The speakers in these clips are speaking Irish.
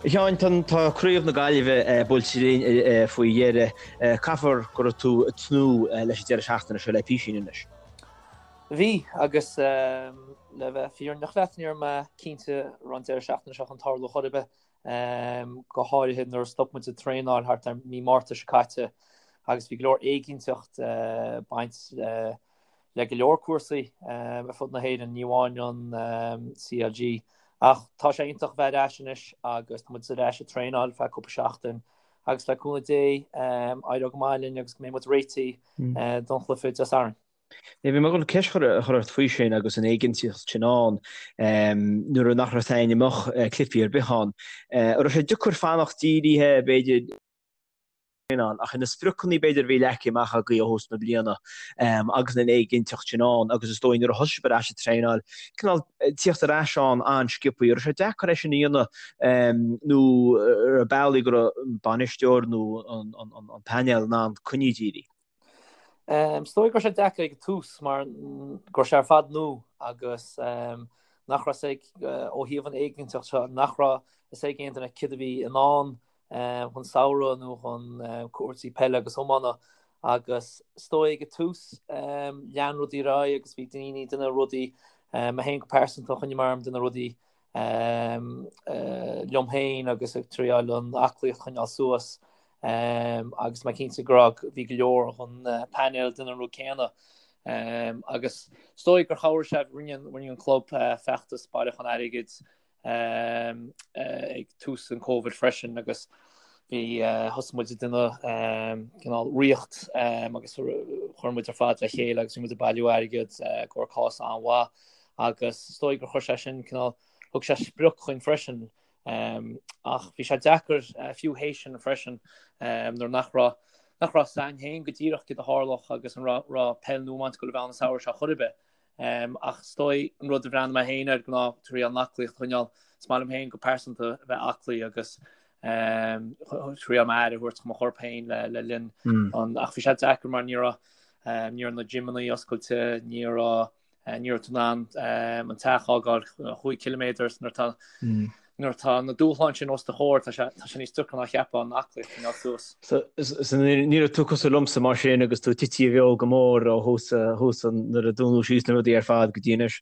A Sheáin, tá Craobh na Gaillimhe buailte linn faoi dheireadh. Caithfear go raibh tú ag tnúth leis an deireadh seachtaine seo le písín anois. Bhí, agus le bheith fírinneach leat, ní raibh mé cinnte an raibh an deireadh seachtaine seo chun tarlú chor ar bith, go háirithe nuair a stop muid ag traenáil thart ar mí Márta seo caite agus bhí go leor éiginnteacht ag baint le go leor cúrsaí ar fud na hÉireann, ní amháin an CLG. Ach tá sé iontach a bheith ar ais anois agus tá muid ar ais ag traenáil feadh cúpla seachtain agus le cúnamh Dé éireoidh go maith linn agus go mbeidh muid réitithe don chluiche Dé Sathairn. Bhí mé ag dul ceist a chur ort faoi sin agus an éiginnteacht sin ann nuair nach raibh aon go mbeadh cluichí ar bith ann. An raibh sé deacair fanacht dírithe, b'fhéidir, ann, ach na spriocanna b'fhéidir a bhí leagtha amach agaibh ó thús na bliana agus an éiginnteacht sin ann agus is dóigh nuair a thosaigh sibh ar ais ag traenáil, cineál tíocht ar ais ann an-sciobtha. Raibh sé deacair é sin a dhéanamh nó raibh bealaí go raibh an bainisteoir nó an painéal in ann coinní dírithe? Is dóigh go raibh sé deacair ag an tús mar go raibh sé ar fad nua agus nach raibh fhios ag, ó thaobh an éiginnteacht seo, nach raibh fhios ag aon duine céard a bhí i ndán chun samhradh nó chun cúrsaí peile agus iomána agus is dóigh ag an tús lean rudaí ar aghaidh agus bhí daoine ag déanamh rudaí, mé féin go pearsanta choinnigh mé orm ag déanamh rudaí liom féin agus ag triáil an aclaíocht a choinneáil suas agus mé cinnte go raibh bhí go leor den painéal ag déanamh an rud céanna agus is dóigh gur chabhraigh sé rinne an club feachtas bailiúchán airgid ag tús an Covid freisin agus bhí thosaigh muid ag déanamh cineál ríocht agus chuir muid ar fad le chéile agus bhí muid ag bailiú airgead i gcomhair cás an-mhaith agus is dóigh gur chuir sé sin cineál thug sé sprioc chuinn freisin ach bhí sé deacair fiú théis sin freisin nuair nach raibh nach raibh fhios againn féin go díreach céard a tharlódh agus an raibh raibh peil nó iomáint ag dul a bheith ann an samhradh seo chor ar bith. Ach is dóigh an rud a bhreathnaigh mé féin air ná triail an aclaíocht a choinneáil. Is maith liom féin go pearsanta a bheith aclaí agus triail m'aire a thabhairt do mo chorp féin le linn an ach bhí sé deacair mar ní raibh ní raibh na gymeanna oscailte, ní raibh ní raibh tú in ann an teach a fhágáil 5 ciliméadar nuair atá Nuair atá na dúshláin sin os do chomhair, tá sé tá sé níos deacra ná cheapfá an aclaíocht a choinneáil suas. So so ní raibh tú cosúil liomsa mar sin agus tú tite i bhfeoil go mór ó thús thús an nuair a dúnadh síos na rudaí ar fad go dtí anois?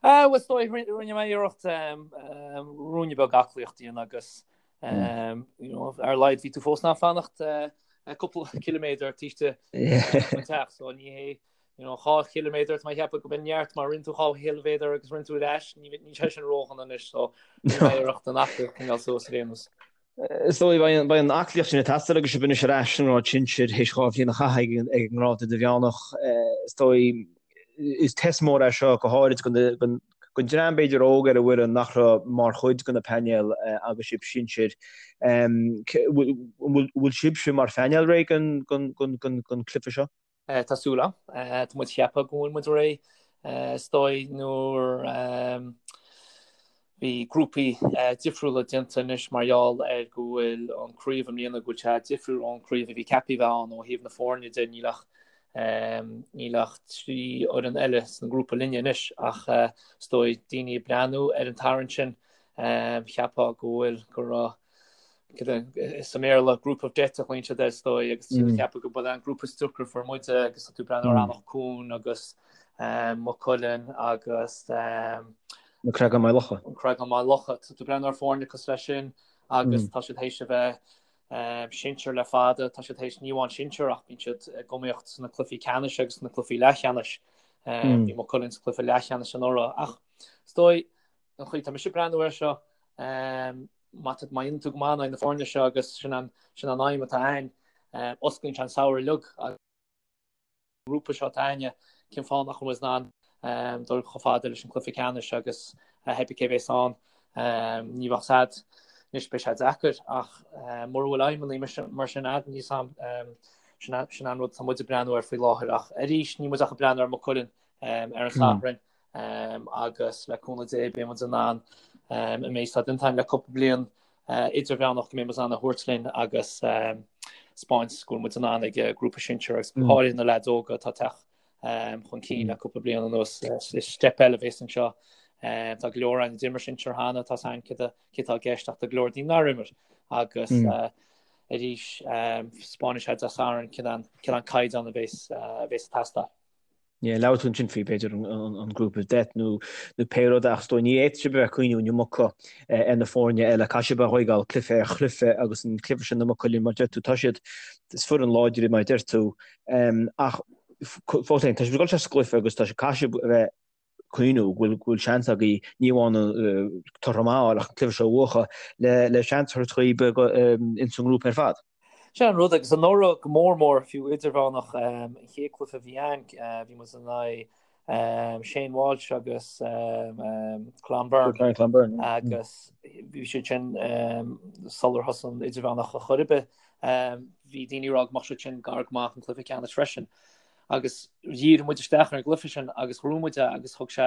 Ah, bhuel, is dóigh, rinne mé iarracht ruainne beag aclaíocht a dhéanamh agus you know, ar a laghad bhí tú fós in ann fanacht cúpla ciliméadar taobh istigh den teach, so ní hé You know, 2 chiliméadar, tá mé ag ceapadh go b'in neart má rinne tú 2 chiliméadar agus rinne tú ar ais, níl sé sin ródhona anois, so rinne mé iarracht an aclaíocht a choinneáil suas ar aon nós. Is dóigh, beidh an aclaíocht sin ag teastáil agus sibh anois ar ais sa ngrád sinsir théis 2 bhliain a chaitheamh ag an ngrád idirmheánach. Is dóigh, is test mór é seo, go háirid don dream b'fhéidir óg ar an bhfoireann nach raibh mar chuid de na painéil agus sibh sinsir. An bhfuil sibhse mar phainéal réidh don chluiche seo? Tá súil agam. Tá muid ag ceapadh go bhfuil muid réidh. Is dóigh nuair bhí grúpaí difriúla déanta anois mar gheall ar go bhfuil an craobh i mbliana go bhfuil sé difriúil ón craobh a bhí ceaptha a bheith ann ó thaobh na foirne de. Níl ach níl ach 3 fhoireann eile san grúpa linne anois ach is dóigh daoine ag breathnú ar an tarraingt sin cheapfá go bhfuil go raibh Sa mBéarla, group of death a ghlaonn siad air is dóigh, agus ceapadh go b'in an grúpa is deacra a fuair muide agus tá tú ag breathnú ar Eanach Cuain agus Maigh Cuilinn agus Na Creagáin Maigh Locha. An Creagán Maigh Locha. Tá tú ag breathnú ar foirne cosúil leis sin agus tá siad théis a bheith sinsir le fada, tá siad théis ní amháin sinsir ach bíonn siad ag iomaíocht sna cluichí ceannais agus sna cluichí leathcheannais. Bhí Maigh Cuilinn sa chluiche leathcheannais anuraidh ach is dóigh an chaoi tá mise ag breathnú air seo, Má tá, má dhéanann tú go maith in aghaidh na foirne seo agus sin an, sin an aidhm atá againn, osclaíonn sé an samhradh uilig agus an grúpa seo atá againne, cén fáth nach bhfuil muid in ann dul chomh fada leis an cluiche ceannais agus pé bith cé bhéas ann, ní bheadh sad, anois beidh sé deacair ach mura bhfuil aidhmeanna mar sin a'd, níl 's a'm, sin, sin an rud atá muid ag breathnú air faoi láthair ach arís níl muid ach ag breathnú ar Maigh Cuilinn ar an Satharn. agus le cúnamh Dé beidh muid in ann an méid atá déanta againn le cúpla bliain idirmheánach go mbeidh muid in ann a thabhairt linn agus 'spáint go bhfuil muid in ann ag grúpa sinsir agus go háirithe na leaids óga atá ag teacht chun cinn le cúpla bliain anuas. Is step eile a bhéas anseo. Tá go leor againn a d'imir sinsir cheana, tá a fhios againn cé atá i gceist ach tá go leor daoine nár imir agus arís 'spáinfidh sé Dé Sathairn cén an caighdeán a bhéas ag teastáil. Yeah, labhair tú ansin faoi b'fhéidir an group of death nó pé rud ach is dóigh ní fhéadfadh sibh a bheith ag cuimhniú an iomarca ar na foirne eile, caithfidh sibh a thógáil cluiche ar chluiche agus an cluiche sin i Maigh Cuilinn mar deir tú, tá siad, is foireann láidir mar deir tú ach fós féin tá sibh ag dul isteach sa gcluiche agus tá caithfidh sibh a bheith cuimhniú go bhfuil go bhfuil seans agaibh ní amháin toradh maith a fháil ach an cluiche seo a bhuachan le le seans a thabhairt dhaoib ins an ngrúpa ar fad. Sin an rud agus anuraidh go mór mór fiú idirmheánach an chéad cluiche a bhí ann bhí muid in aghaidh Shane Walsh agus Clonberne agus bhí siad sin sular thosaigh an idirmheánach ar chor ar bith bhí daoine ag rá go mbeadh siad sin gar go maith an cluiche ceannais freisin. agus dhírigh muid isteach ar an gcluiche sin agus ghnóthaigh muid é agus thug sé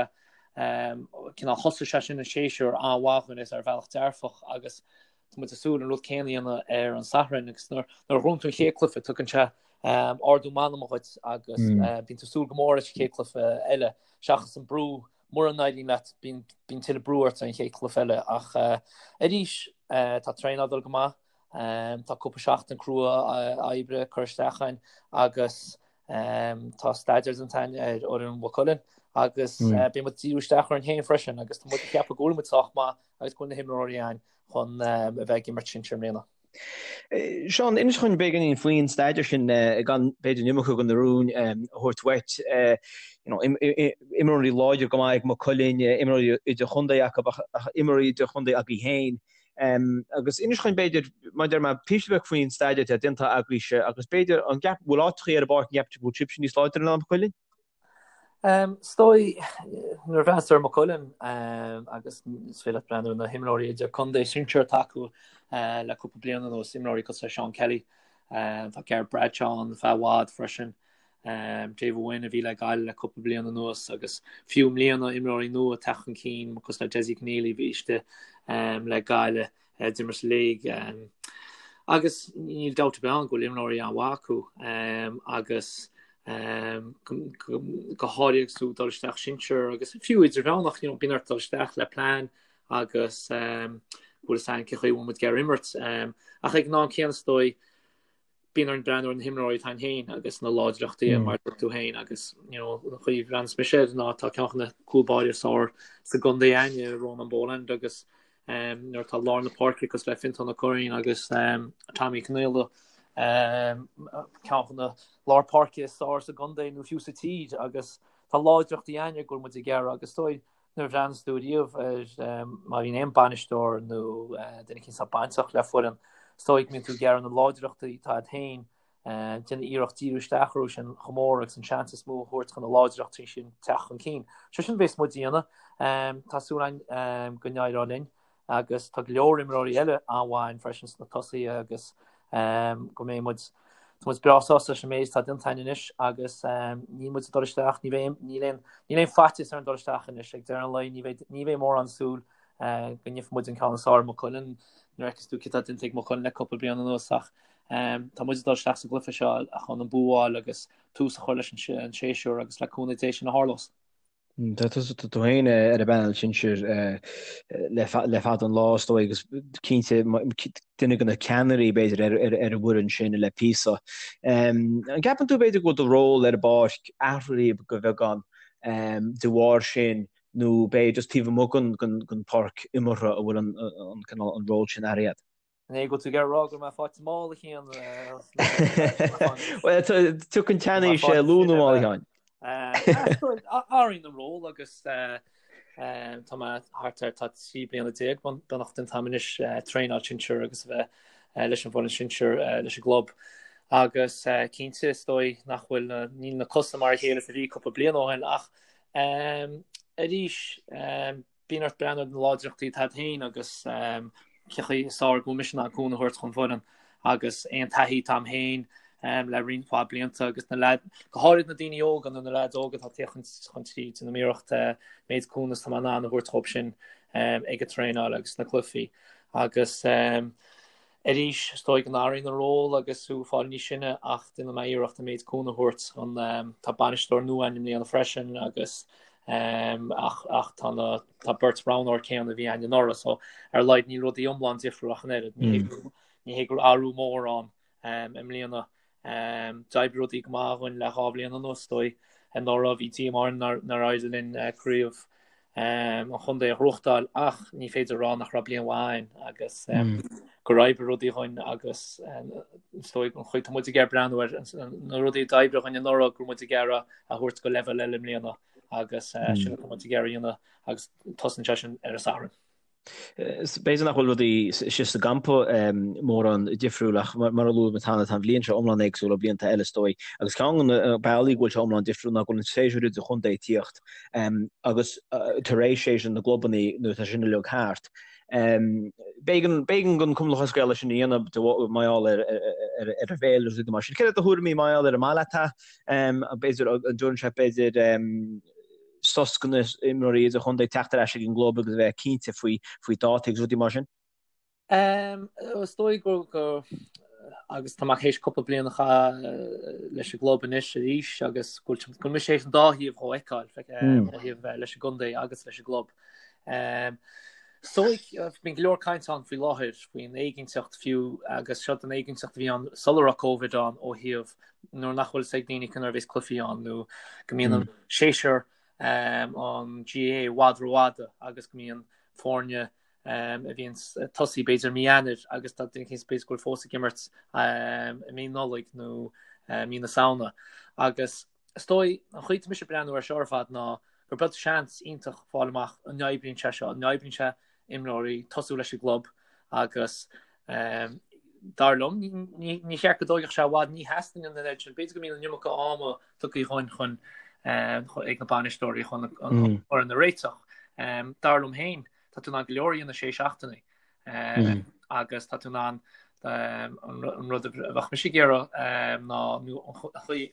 cineál thosaigh sé sin an séasúr an-mhaith dhúinn is ar bhealach dearfach agus tá muid ag súil an rud céanna a dhéanamh ar an Satharn agus nuair a ghnóthaíonn tú an chéad cluiche tugann sé ardú meanma dhuit agus bíonn tú ag súil go mór leis an chéad cluiche eile seachas an brú mura n-éiríonn leat bíonn tuilleadh brú ort ar an chéad cluiche eile ach arís tá traenáil ag dul go maith Tá cúpla seachtain crua oibre curtha isteach againn agus tá staidéar déanta againn ar fhoireann Mhaigh Cuilinn agus beidh muid ag díriú isteach orainn féin freisin agus tá muid ag ceapadh go bhfuil muid sách maith agus go bhfuil na himreoirí againn chun a bheith ag imirt sinsir i mbliana. Seán, inis dhúinn beagáinín faoin staidéar sin gan b'fhéidir an iomarca de na rúin a thabhairt uait. Imreoirí láidir go maith ag Maigh Cuilinn, imreoirí idirchontae acu ach imreoirí idirchontae agaibh féin. Agus inis dhúinn b'fhéidir, mar a deir mé, píosa beag faoin staidéar atá déanta agaibhse agus b'fhéidir an gceap, bhfuil áiteachaí ar an bpáirc an gceapann tú go bhfuil sibhse níos láidre ná Maigh Cuilinn? Is dóigh, nuair a bhreathnaíos ar Maigh Cuilinn agus is féidir leat breathnú ar na himreoirí idir contae sinsir atá acu le cúpla bliain anuas, imreoirí cosúil le Seán Kelly, tá Ger Bradshaw ann feadh i bhfad freisin, David Wynne a bhí le Gaillimh le cúpla bliain anuas agus fiú i mbliana imreoirí nua ag teacht chun cinn cosúil le Dessie Conneely a bhí istigh le Gaillimh a d'imir sa léig agus níl dabht ar bith ann go bhfuil imreoirí an-mhaith acu agus go háirithe agus tú ag dul isteach sinsir agus fiú idirmheánach you know, bíonn ort dul isteach le plean agus go bhfuil fhios againn cén chaoi a bhfuil muid ag iarraidh imirt ach ag an am céanna is dóigh bíonn orainn breathnú ar na himreoirí atá againn féin agus na láidreachtaí mar a dúirt tú féin agus you know, an chaoi a bhreathnaíos mise air ná tá ceann de na cúl báirí is fearr sa gcontae againne, Ronan Boland agus um, nuair atá lár na páirce cosúil le Fintán Ó Curraoin agus um, Tommy Conaola um, ceann de na lár páirce is fearr sa gcontae nó fiú sa tír agus tá láidreachtaí againne go bhfuil muid ag iarraidh agus is dóigh Nuair a bhreathnaíos tú riamh ar má bhíonn aon bainisteoir nó duine éicint atá bainteach le foireann, is dóigh go mbíonn tú ag iarraidh na láidreachtaí atá agat féin, déanamh iarracht díriú isteach orthu sin chomh mór agus an seans is mó a thabhairt chun na láidreachtaí sin teacht chun cinn. Sé sin a bhéas muid a dhéanamh. Tá súil againn go n-éireoidh linn. agus tá go leor imreoirí eile an-mhaith againn freisin sna tosaithe agus go mbeidh muid tá muid breá sásta leis an méid atá déanta againn anois agus níl muid ag dul isteach, ní bheidh níl aon níl aon faitíos orainn dul isteach anois ag deireadh an lae ní bheidh ní bheidh mórán súil go ngeobhaidh muid an ceann is fearr ar Maigh Cuilinn nuair a fheiceas tú cé tá déanta ag Maigh Cuilinn le cúpla bliain anuas ach tá muid ag dul isteach sa gcluiche seo chun an bua a fháil agus tús a chur leis an séasúr agus le cúnamh Dé sin a tharlós. Tá tú féin ar an bpainéal sinsir le fada an lá, is dóigh, agus cinnte duine de na ceannairí, b'fhéidir, ar an bhfoireann sin le píosa. An gceapann tú, b'fhéidir, go bhfuil do ról ar an bpáirc athraithe de bheagán de bharr sin nó b'fhéidir just taobh amuigh den pháirc imeartha a bhfuil an cineál an ról sin athraithe agat? An é go bhfuil tú ag iarraidh a rá go raibh mé faighte mall a Sheáin? Bhuel, tiocfaidh an tseanaois luath nó mall a Sheáin. Athraíonn an ról agus tá mé thart ar tá 13 bliana beagnach déanta agam anois traenáil sinsir agus a bheith leis an bhfoireann sinsir leis an gclub. Agus cinnte is dóigh nach bhfuil níl na cosa mar a chéile is a bhí cúpla bliain ó shin ach arís Bíonn ort breathnú ar na láidreachtaí atá agat féin agus cén chaoi is fearr go bhfuil mise in ann cúnamh a thabhairt chun foireann agus aon taithí atá agam féin le roinnt mhaith blianta agus na leaid, go háirid na daoine óga nó na leaids óga atá ag teacht chun tríd, déanaim iarracht méid cúnamh is atá mé in ann a thabhairt dhóibh sin ag an traenáil agus sna cluichí agus Arís, is dóigh go n-athraíonn an ról agus tú ag fáil níos sine ach déanfaidh mé iarracht an méid cúnamh a thabhairt chun, tá bainisteoir nua againn i mbliana freisin agus Ach ach tá na tá beirt roghnóir céanna a bhí againn anuraidh so ar a laghad níl rudaí iomlán difriúil ach an oiread. Ní hé mm. ní hé go raibh athrú mór ann i mbliana. D'oibrigh rudaí go maith dhúinn le 2 bhliain anuas, is dóigh. Anuraidh bhí díomá orainn nár éirigh linn craobh an chontae a ghnóthachtáil ach ní féidir a rá nach raibh bliain mhaith againn agus gur oibrigh rudaí dhúinn agus is dóigh an chaoi tá muid ag iarraidh breathnú ar na rudaí a d'oibrigh dhúinn anuraidh go raibh muid ag iarraidh a thabhairt go leibhéal eile i mbliana agus sin atá muid ag iarraidh a dhéanamh agus tosaíonn sé sin ar an Satharn. B'fhéidir nach bhfuil rudaí istigh sa gcampa mórán difriúil ach mar a luaigh muid cheana tá an bhliain seo iomlán éagsúil ó bhlianta eile is dóigh. Agus ceann de na bealaí go bhfuil sé iomlán difriúil ná go bhfuil an séasúr idirchontae ag tíocht agus tar éis séasúr na gclubanna nuair atá sin uilig thart. B'éigean don Chumann Lúthchleas Gael é sin a dhéanamh mar gheall ar an bhféilire agus rudaí mar sin. Céard iad do thuairimí mar gheall air an maith leat é? B'fhéidir an dtabharann sé b'fhéidir sos do na imreoirí idirchontae teacht ar ais ag an gclub agus a bheith cinnte faoi faoi dátaí agus rudaí mar sin? Is dóigh go go agus tá mé théis cúpla bliain a chaitheamh leis an gclub anois arís agus go bhfuil mise théis an dá thaobh dhó a fheiceáil ó thaobh bheith leis an gcontae agus leis an gclub. Is dóigh bíonn go leor caint ann faoi láthair faoin éiginnteacht fiú agus seo den éiginnteacht a bhí ann sula raibh Covid ann ó thaobh nuair nach bhfuil fhios ag daoine conas a bheas cluichí ann nó go mbíonn an séasúr an GAA i bhfad rófhada agus go mbíonn foirne a bhíonn ag tosaí b'fhéidir mí Eanáir agus tá duine éicint b'fhéidir go bhfuil fós ag imirt i mí Nollaig nó mí na Samhna. Agus is dóigh an chaoi atá mise ag breathnú air seo ar fad ná gur beag seans iontach fáil amach an n-oibríonn sé seo, an n-oibríonn sé imreoirí tosú leis an gclub agus dar liom ní cheart go dtógfadh sé i bhfad, ní theastaíonn an oiread sin, b'fhéidir go mbíonn an iomarca ama tugtha dhúinn chun ag na bainisteoirí chun an fhoireann a réiteach. Dar liom féin, tá tú in ann go leor a dhéanamh sé seachtainí agus tá tú in ann an rud a bheadh mise ag iarraidh ná nó an chaoi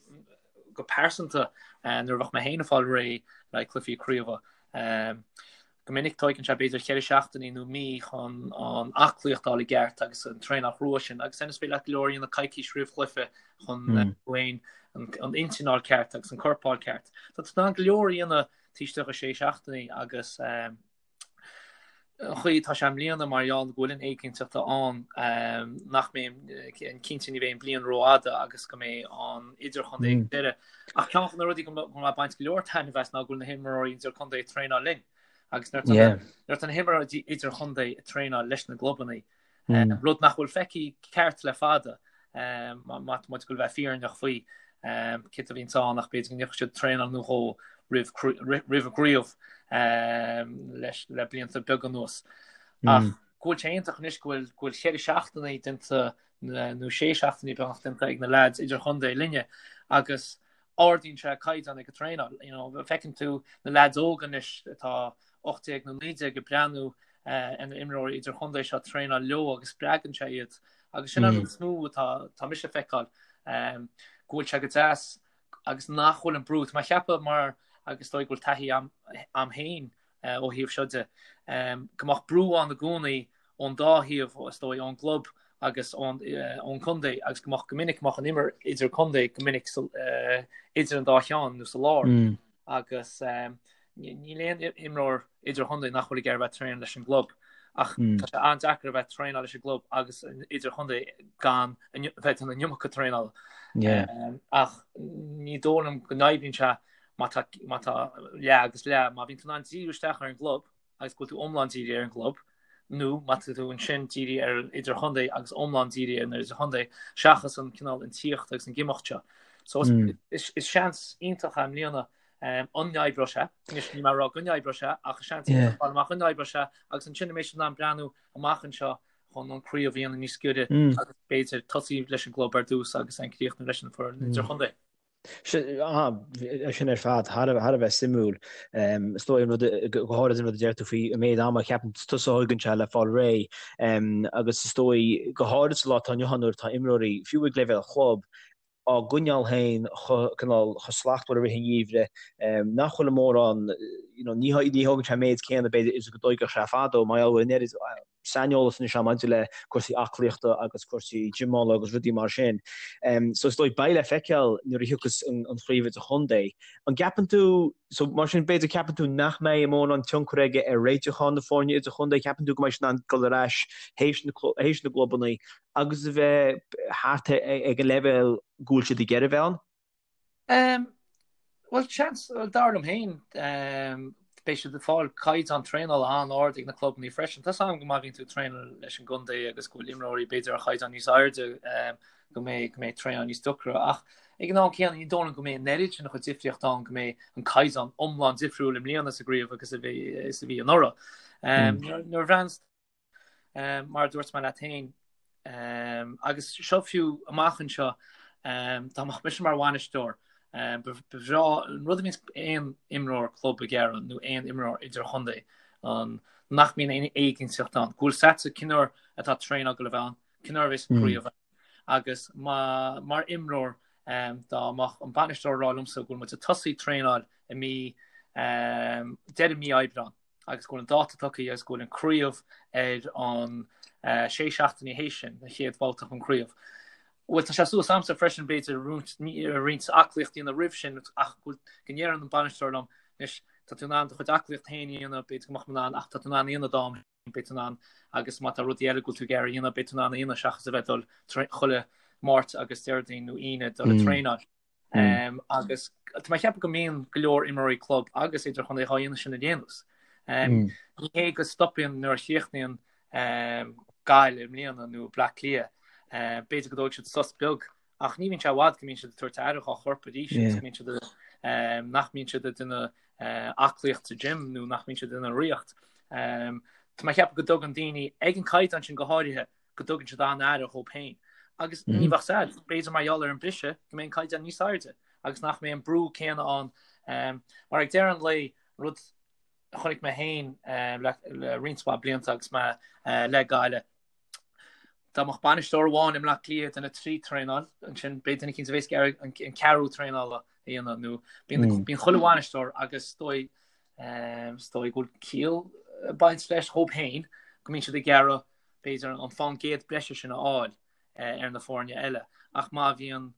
go pearsanta nuair a bheadh mé féin ag fáil réidh le cluichí craoibhe. Go minic tóigeann sé b'fhéidir cheithre seachtainí nó mí chun an aclaíocht a fháil i gceart agus an traenáil chrua sin agus ansin is féidir leat go leor a dhéanamh coicís roimh chluiche chun tú féin an intinn a fháil ceart agus an corp a fháil ceart. Tá tú in ann go leor a dhéanamh taobh istigh de sé seachtainí agus an chaoi atá sé i mbliana mar gheall go bhfuil an éiginnteacht ann nach mbeidh cinnte ní bheidh an bliain rófhada agus go mbeidh an idirchontae ag deireadh. Ach ceann de na rudaí go mbeidh ag baint go leor taitneamh as ná go bhfuil na himreoirí idirchontae ag traenáil linn. Agus nuair atá na himreoirí idirchontae ag traenáil leis na gclubanna, rud nach bhfuil feicthe ceart le fada, má tá muid ag goil a bheith fírinneach faoi, cé a bhíonns ann ach b'fhéidir go ndeachaigh siad traenáil nó dhó roimh roimh an gcraobh leis le blianta beaga anuas. Ach go bhfuil sé iontach anois go bhfuil go bhfuil cheithre seachtainí déanta nó sé seachtainí beagnach déanta ag na leaids idirchontae linne agus ardaíonn sé caighdeán ag an traenáil. You know, feiceann tú na leaids óga anois atá 18 nó 19 ag breathnú ar na imreoirí idirchontae seo traenáil leo agus spreagann sé iad. Agus sin an rud is mó atá tá mise ag feiceáil go bhfuil sé go deas agus nach bhfuil an brú. Tá mé ag ceapadh mar agus is dóigh go bhfuil taithí a'm féin ó thaobh seo de, go mbeadh brú ann i gcónaí ón dá thaobh, is dóigh, ón gclub agus ón gcontae agus go mbeadh go minic go mbeadh an imirt idir contae go minic idir an dá cheann nó sa lár agus níl aon imreoir idirchontae nach bhfuil ag iarraidh bheith traenáil leis an gclub ach tá sé an-deacair a bheith traenáil leis an gclub agus idirchontae gan bheith ag déanamh an iomarca traenála. Ach ní dóigh liom go n-oibríonn sé má tá, má tá leath agus leath, má bhíonn tú in ann díriú isteach ar an gclub agus go bhfuil tú iomlán dírithe ar an gclub, nó má tá tú ansin dírithe ar an idirchontae agus iomlán dírithe ar an idirchontae, seachas an cineál an tíocht agus an imeacht seo. So is, mm. is, is seans iontach é i mbliana um, an n-oibreoidh sé, anois níl mé ag rá go n-oibreoidh sé, ach is seans iontach yeah. amach an n-oibreoidh sé, agus ansin an mbeidh siad in ann breathnú amach anseo chun an craobh a dhéanamh níos giorra mm. agus b'fhéidir tosaí leis an gclub ar dtús agus an críochnú leis an foireann mm. idirchontae. Sin ar fad thar a bheith suimiúil. Is dóigh an rud, go háirid an rud a deir tú faoi an méid ama a cheapann tusa a thógann sé le fáil réidh. Agus is dóigh, go háirid sa lá atá inniu ann nuair atá imreoirí, fiú ag leibhéal chlub, á gcoinneáil féin chomh, cineál, chomh slachtmhar i rith an gheimhridh, nach bhfuil mórán, you know, ní thógann sé an méid céanna b'fhéidir is go dtóigfeadh sé fadó, mar gheall go bhfuil an oiread. saineolas anois ann maidir le cúrsaí aclaíochta agus cúrsaí gymeála agus rudaí mar sin. So is dóigh beidh le feiceáil nuair a thiocfas an chraobh idirchontae. An gceapann tú, so mar sin b'fhéidir ceapann tú nach mbeidh mórán tionchar aige ar réitiúchán na foirne idirchontae, ceapann tú go mbeidh siad in ann dul ar ais théis na théis na gclubanna agus a bheith thart ag an leibhéal go bhfuil siad ag iarraidh a bheith ann? Bhuel, seans, dar liom féin, beidh siad ag fáil caighdeán traenála an-ard ag na clubanna freisin. Tá 's agam go má bhíonn tú ag traenáil leis an gcontae agus go bhfuil imreoirí b'fhéidir ar chaighdeán níos airde go mbeidh go mbeidh traenáil níos deacra ach ag an am céanna ní dóigh liom go mbeidh an oiread sin de dhifríocht ann go mbeidh an caighdeán iomlán difriúil i mbliana sa gcraobh agus a bhí is a bhí anuraidh. Nuair a bhreathnaíonn Mar a dúirt mé leat féin, agus seo fiú amach anseo, dá mbeadh mise mar bhainisteoir, ba bhreá an rud a bhíonns aon imreoir club ag iarraidh nó aon imreoir idirchontae, nach mbíonn aon éiginnteacht ann, go bhfuil 's agatsa cén uair atá traenáil ag dul a bheith ann, cén uair a bheas craobh ann. Agus mar imreoir, dá mbeadh an bainisteoir ag rá liomsa go bhfuil muid ag tosaí traenáil i mí, deireadh mí Aibreán, agus go bhfuil an dáta tugtha agus go bhfuil an craobh ar an sé seachtainí théis sin, an chéad bhabhta den chraobh. Bhuel, tá sé suas a'msa freisin, b'fhéidir, roinnt aclaíocht a dhéanamh roimh sin ach go ndéarfadh an bainisteoir liom, anois, tá tú in ann do chuid aclaíocht féin a dhéanamh, b'fhéidir go mbeadh mé in ann ach tá tú in ann a dhéanamh d'am féin, beidh tú in ann agus má tá rudaí eile go bhfuil tú ag iarraidh a dhéanamh, beidh tú in ann a dhéanamh seachas a bheith ag dul chuile Máirt agus Déardaoin nó Aoine dul ag traenáil. Agus tá mé ag ceapadh go mbíonn go leor imreoirí club agus idirchontae dhá dhéanamh sin ar aon nós. Ní hé go stopann nuair a chríochnaíonn Gaillimh i mbliana nó Bleá Cliath, b'fhéidir go dtógfaidh siad sos beag ach ní bhíonn sé i bhfad go mbíonn siad ag tabhairt aire dhá chorp arís agus go mbíonn siad nach mbíonn siad ag déanamh aclaíocht sa gym nó nach mbíonn siad ag déanamh rothaíocht. Tá mé ag ceapadh go dtugann daoine ag an caighdeán sin go háirithe go dtugann siad an-aire dhóibh féin. Agus ní bheadh 's a'd, b'fhéidir mar gheall ar an briseadh go mbeidh an caighdeán níos airde agus nach mbeidh an brú céanna ann. Mar ag deireadh an lae, rud a chonaic mé féin le roinnt mhaith blianta agus mé le Gaillimh, dá mbeadh bainisteoir amháin i mBleá Cliath ag déanamh 3 traenáil, ansin beidh duine eicínt a bheas ag iarraidh an ceathrú traenála a dhéanamh nó bíonn chuile bhainisteoir agus is dóigh is dóigh go bhfuil ciall ag baint leis dhóibh féin go mbíonn siad ag iarraidh b'fhéidir, an fán gcéad breise sin a fháil ar na foirne eile. Ach má bhíonn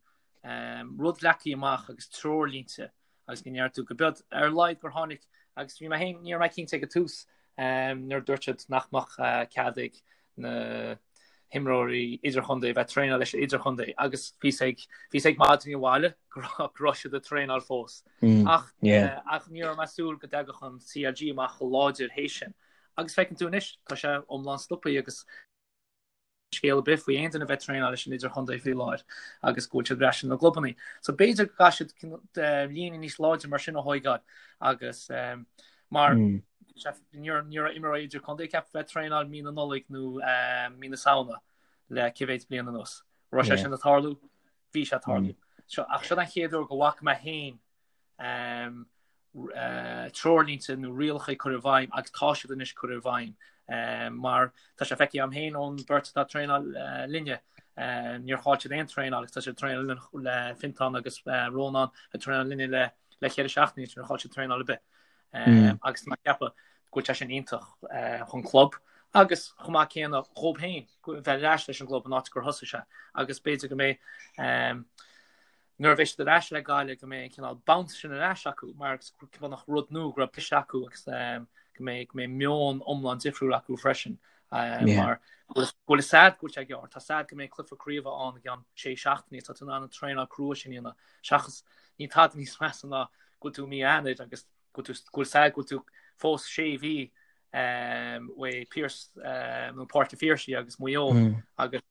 rud leagtha amach agus treoirlínte agus go ndeir tú go bead ar a laghad gur tháinig agus bhí mé féin, ní raibh mé cinnte ag an tús nuair a dúirt siad nach mbeadh cead ag na himreoirí idirchontae a bheith traenáil leis an idirchontae agus bhíos ag bhíos ag maidin abhaile go raibh siad ag traenáil fós. Ach ach ní raibh mé ag súil go dtagadh an CLG amach chomh láidir théis sin. Agus feiceann tú anois, tá sé iomlán stoptha agus scéal ar bith faoi aon duine a bheith ag traenáil leis an idirchontae faoi láthair agus go bhfuil siad ar ais ina gclubanna. So b'fhéidir go gcaithfidh siad líne níos láidre mar sin a thóigeáil agus mar ní raibh imreoirí idirchontae ceaptha bheith ag traenáil mí na Nollag nó mí na Samhna le cé mhéad bliain anuas. Raibh sé sin ag tarlú? Bhí sé ag tarlú. Ach seo an chéad uair go bhfaca mé féin treoirlínte nó rialacha curtha i bhfeidhm agus tá siad anois curtha i bhfeidhm mar tá sé feicthe agam féin ón bheirt atá ag traenáil linne níor chaill siad aon traenáil agus tá siad ag traenáil le Fintán agus Rónán ag traenáil linne le le cheithre seachtainí níor chaill siad traenáil ar bith agus tá mé ag ceapadh go bhfuil sé sin iontach chun club agus chomh maith céanna dhóibh féin bheith ar ais leis an gclub an áit gur thosaigh sé agus b'fhéidir go mbeidh nuair a bheidh siad ar ais le Gaillimh go mbeidh an cineál bounce sin ar ais acu mar go nach rud nua go raibh briseadh acu agus go mbeidh go mbeidh meon iomlán difriúil acu freisin mar go bhfuil a fhios a'd go bhfuil sé gearr tá a fhios a'd go mbeidh cluiche craoibhe ann i gceann sé seachtainí tá tú in ann an traenáil crua sin a dhéanamh seachas níl tada níos measa ná go bhfuil tú i mí Eanáir agus go bhfuil a fhios a'd go bhfuil tú fós sé mhí uaidh Pearse nó Páirc an Phiarsaigh agus Maigh Eo agus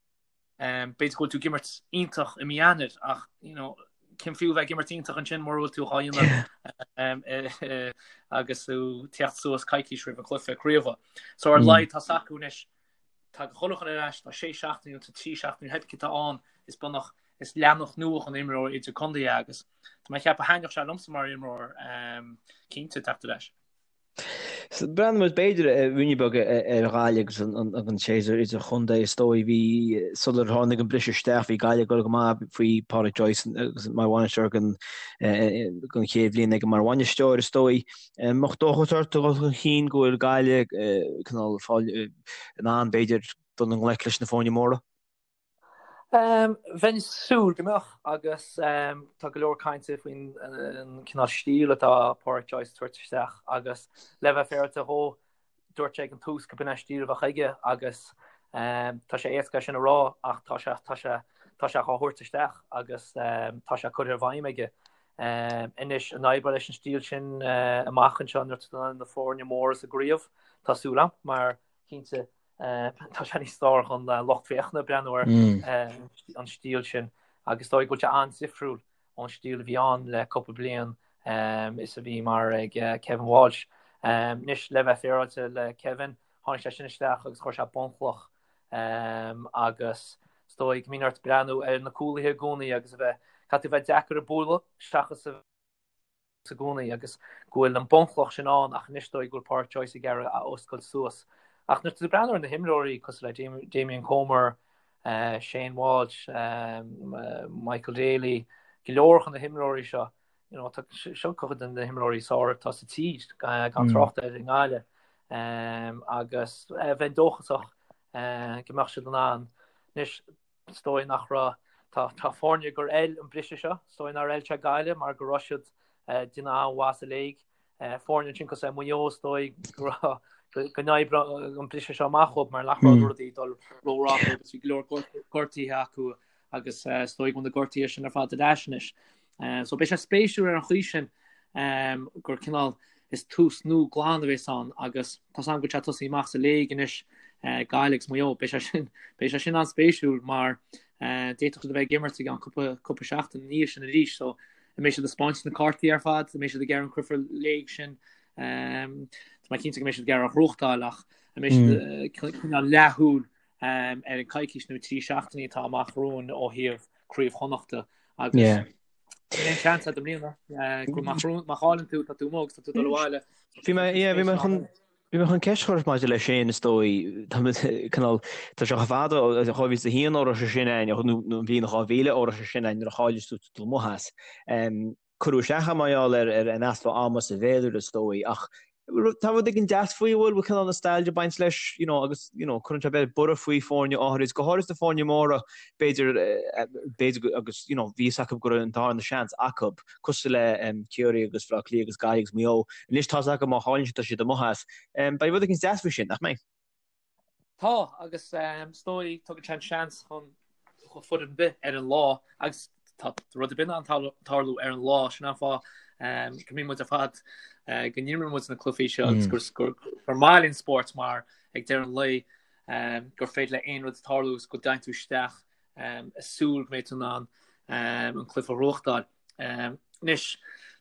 B'fhéidir go bhfuil tú ag imirt iontach i mí Eanáir ach you know, cén fiú bheith ag imirt iontach ansin mura bhfuil tú á dhéanamh agus tú teacht suas coicís roimh an cluiche craoibhe. So ar a laghad tá a fhios acu anois tá chuile dhuine ar ais tá sé seachtaine nó tá trí seachtaine pé ar bith atá ann is bunach is leathanach nua chun imreoir idirchontae agus tá mé ag ceapadh thaitneodh sé liomsa mar imreoir cinnte teacht ar ais. Breathnóidh muid b'fhéidir ruainne beag ar Ghaillimh agus an séasúr idirchontae is dóigh. Bhí, sular tháinig an briseadh isteach, bhí Gaillimh ag dul go maith faoi Pádraic Joyce agus mar bhainisteoir don chéad bhliain aige mar bhainisteoir is dóigh. An mbeadh dóchas ort a dhul chun cinn go bhfuil Gaillimh cineál fáil in ann b'fhéidir dul i ngleic leis na foirne móra? Bheinn ag súil go mbeadh agus tá go leor cainte faoin cineál stíl atá Pádraic Joyce ag tabhairt isteach agus le bheith féaráilte dhó, dúirt sé ag an tús go b'in é an stíl a bheadh aige agus tá sé éasca é sin a rá ach tá sé tá sé tá sé á thabhairt isteach agus tá sé curtha i bhfeidhm aige. Anois an oibreoidh leis an stíl sin amach anseo nuair atá na foirne móra sa gcraobh, tá súil agam mar cinnte Tá sé níos fearr don lucht féachana breathnú ar an stíl sin agus is dóigh go bhfuil sé an-difriúil ón stíl a bhí ann le cúpla bliain is a bhí mar ag Kevin Walsh. Anois le bheith féaráilte le Kevin, tháinig sé sin isteach agus chuir sé bunchloch agus is dóigh go mbíonn ort breathnú ar na cúlaithe i gcónaí agus a bheith, caithfidh tú a bheith deacair a bualadh seachas a i gcónaí agus go bhfuil an bunchloch sin ann ach anois is dóigh go bhfuil Pádraic Joyce ag iarraidh a oscailt suas. Ach nuair atá tú ag breathnú ar na himreoirí cosúil le Damien Comer, Shane Walsh, Michael Daly, go leor de na himreoirí seo, you know, tá seo cuid de na himreoirí is fearr atá sa tír gan trácht ar i nGaillimh agus bheinn dóchasach go mbeadh siad in ann. Anois Is dóigh nach raibh. Tá tá foirne gur fheil an briseadh seo. Is dóigh nár fheil sé Gaillimh mar go raibh siad ag déanamh an-mhaith sa léig. Foirne ansin cosúil le Maigh Eo is dóigh go raibh go n-oibreodh an briseadh seo amach dhóibh mar nach raibh rudaí ag dul rómhaith dóibh agus bhí go leor gortuithe acu agus is dóigh go bhfuil na gortuithe sin ar fad ar ais anois. So beidh sé spéisiúil ar an chaoi sin gur cineál is tús nua glan a bhéas ann agus tá 's agam go bhfuil sé tosaithe amach sa léig anois, Gaillimh agus Maigh Eo. Beidh sé sin, beidh sé sin an-spéisiúil mar d'fhéadfadh siad a bheith ag imirt i gceann cúpla, cúpla seachtain ina dhiaidh sin arís. So an mbeidh siad ag spáint na cártaí ar fad, an mbeidh siad ag iarraidh an cluiche léig sin, tá mé cinnte go mbeidh siad ag iarraidh a ghnóthachtáil ach an mbeidh siad cineál leathshúil ar an coicís nó 3 seachtainí atá amach romhainn ó thaobh Craobh Chonnachta agus Yeah. níl aon seans agat i mbliana go má má chailleann tú tá tú amuigh agus tá tú dul abhaile. Bhí mé yeah, bhí mé chun bhí mé chun ceist a chur ort maidir leis sin is dóigh tá mé cineál tá sé chomh fada ó 2001 ó raibh sé sin ann nó nó an bhliain 2000 ó raibh sé sin ann nuair a chaill tú dul amuigh as. Cuireadh isteach é mar gheall ar an easpa ama sa bhféilire is dóigh ach tá rud éigin deas faoi, bhfuil, bhfuil cineál nostalgia ag baint leis, you know, agus, you know, cuireann sé b'fhéidir borradh faoi foirne áirid, go háirid na foirne móra, b'fhéidir, b'fhéidir agus, you know, bhí fhios acu go raibh an darna seans acu, cosúil le Ciarraí agus Baile Átha Cliath agus Gaillimh agus Maigh Eo. Anois tá fhios acu má chailleann siad tá siad amuigh as. Beidh rud éigin deas faoi sin, nach mbeidh? Tá, agus is dóigh tugann sé an seans chun foireann ar bith ar an lá agus tá rud ar bith in ann tarlú ar an lá, sin an fáth go mbíonn muid ar fad go n-imríonn muid na cluichí seo agus gur gur maith linn spórt mar ag deireadh an lae gur féidir le aon rud tarlú agus go dtéann tú isteach ag súil go mbeidh tú in ann an cluiche a ghnóthachtáil. Anois,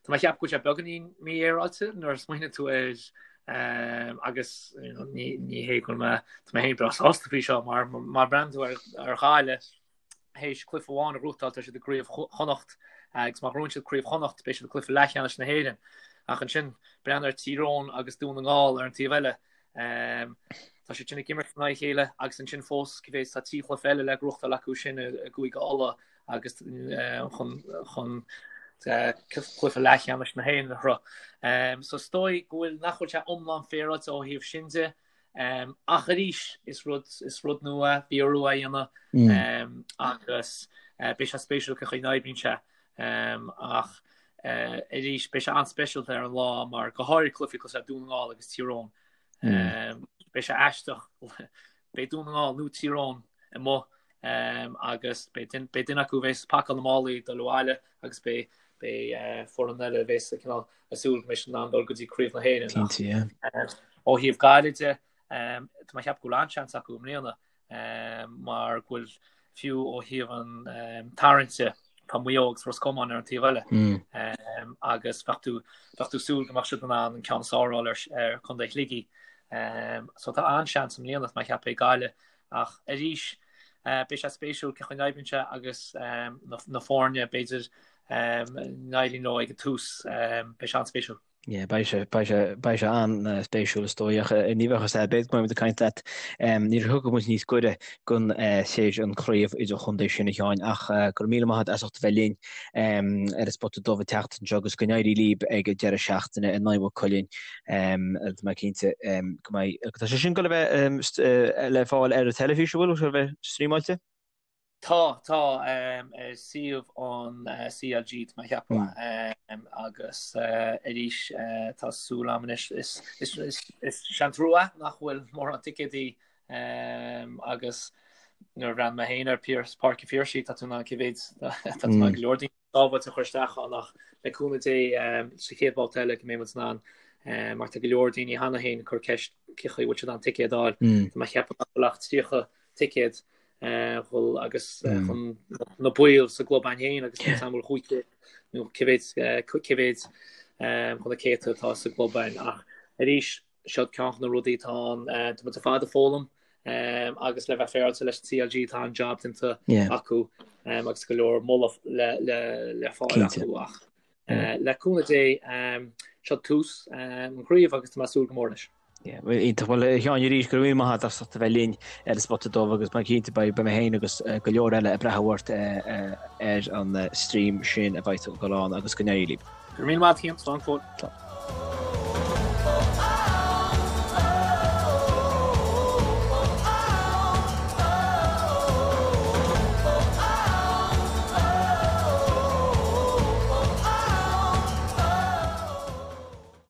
tá mé ag ceapadh go bhfuil sé beagáinín mífhéaráilte nuair a smaoiníonn tú air agus ní hé go bhfuil mé, tá mé féin breá sásta faoi seo mar má bhreathnaíonn tú ar Ghaillimh théis cluiche amháin a ghnóthachtáil tá siad i gCraobh Chonnacht agus má ghnóthaíonn siad Craobh Chonnacht beidh siad i gcluiche leathcheannais na hÉireann. Ach ansin breathnaigh ar Tír Eoghain agus Dún na nGall ar an taobh eile. Tá siad sin ag imirt in aghaidh a chéile agus ansin fós cibé tá 3 chluiche eile le gnóthachtáil acu sin i gCúige Uladh agus chun chun cluiche leathcheannais na hÉireann a shroich. So is dóigh go bhfuil nach bhfuil sé iomlán féaráilte ó thaobh sin de. Ach arís is rud is rud nua bhí orthu é a dhéanamh agus beidh sé spéisiúil cén chaoi a n-oibríonn sé. Ach arís beidh sé an-speisialta ar an lá mar go háirithe cluichí cosúil le Dún na nGall agus Tír Eoghain. Beidh sé aisteach beidh Dún na nGall nó Tír Eoghain amuigh agus beidh duine acu a bheas ag pacáil na málaí ag dul abhaile agus beidh beidh foireann eile a bheas cineál ag súil go mbeidh siad in ann dul go dtí Craobh na hÉireann. Cinnte, yeah. Ó thaobh Gaillimh de, tá mé ag ceapadh go bhfuil an-seans acu i mbliana mar go bhfuil fiú ó thaobh an tarraingte tá Maigh Eo agus Ros Comáin ar an taobh eile agus bheadh tú bheadh tú ag súil go mbeadh siad in ann an ceann is fearr a fháil ar ar Contae Shligigh. So tá an-seans i mbliana tá mé ag ceapadh ag Gaillimh Ach arís, beidh sé spéisiúil cén chaoi a n-oibríonn sé agus na foirne, b'fhéidir, n-éiríonn leo ag an tús. Beidh sé an-spéisiúil. Yeah, beidh sé, beidh sé, beidh sé an-spéisiúil is dóigh ach ní bheadh fhios a'd, b'fhéidir go mbeidh muid ag caint leat nuair a thiocfaidh muid níos gaire don théis an chraobh idirchontae sin a Sheáin ach go raibh míle maith agat as ucht a bheith linn ar an Spota Dubh an tseachtain seo agus go n-éirí libh ag an deireadh seachtaine in aghaidh Mhaigh Cuilinn. Tá mé cinnte go mbeidh, tá sé sin ag dul a bheith le fáil ar an teilifís, an bhfuil, a bheith streamáilte? Tá, tá, ar suíomh an CLG, tá mé a cheapadh, agus arís tá súil agam anois, is sé an trua nach bhfuil mórán ticéadaí agus nuair a bhreathnaigh mé féin ar Páirc an Phiarsaigh, tá tú in ann cé mhéad, tá tú in ann go leor daoine sábháilte a chur isteach ann ach le cúnamh Dé sa chéad bhabhta eile go mbeidh muid in ann mar tá go leor daoine cheana féin ag cur ceist cén chaoi a bhfuil siad in ann ticéad a fháil. Tá mé a cheapadh nach bhfuil ach 30 ticéad dhul agus chun na baill sa gclub againn féin agus níl 'fhios a'm an bhfuil 500 nó cé mhéad cé mhéad chun na céadta atá sa gclub againn ach arís seo ceann de na rudaí atá ann tá muid ar fad ag foghlaim agus le bheith féaráilte leis an CLG tá an-jab déanta acu agus go leor moladh le le le fáil acu ach Le cúnamh Dé, seo tús an chraobh agus tá mé ag súil go mór leis. Iontach. Bhuel, a Sheáin, arís, go raibh míle maith agat as ucht a bheith linn ar an Spota Dubh agus mé cinnte beidh mé féin agus go leor eile ag breathnú ort ar an stream sin a bheidh ag dul ann agus go n-éirí libh. Go raibh míle maith agat, Cian. Slán go fóill.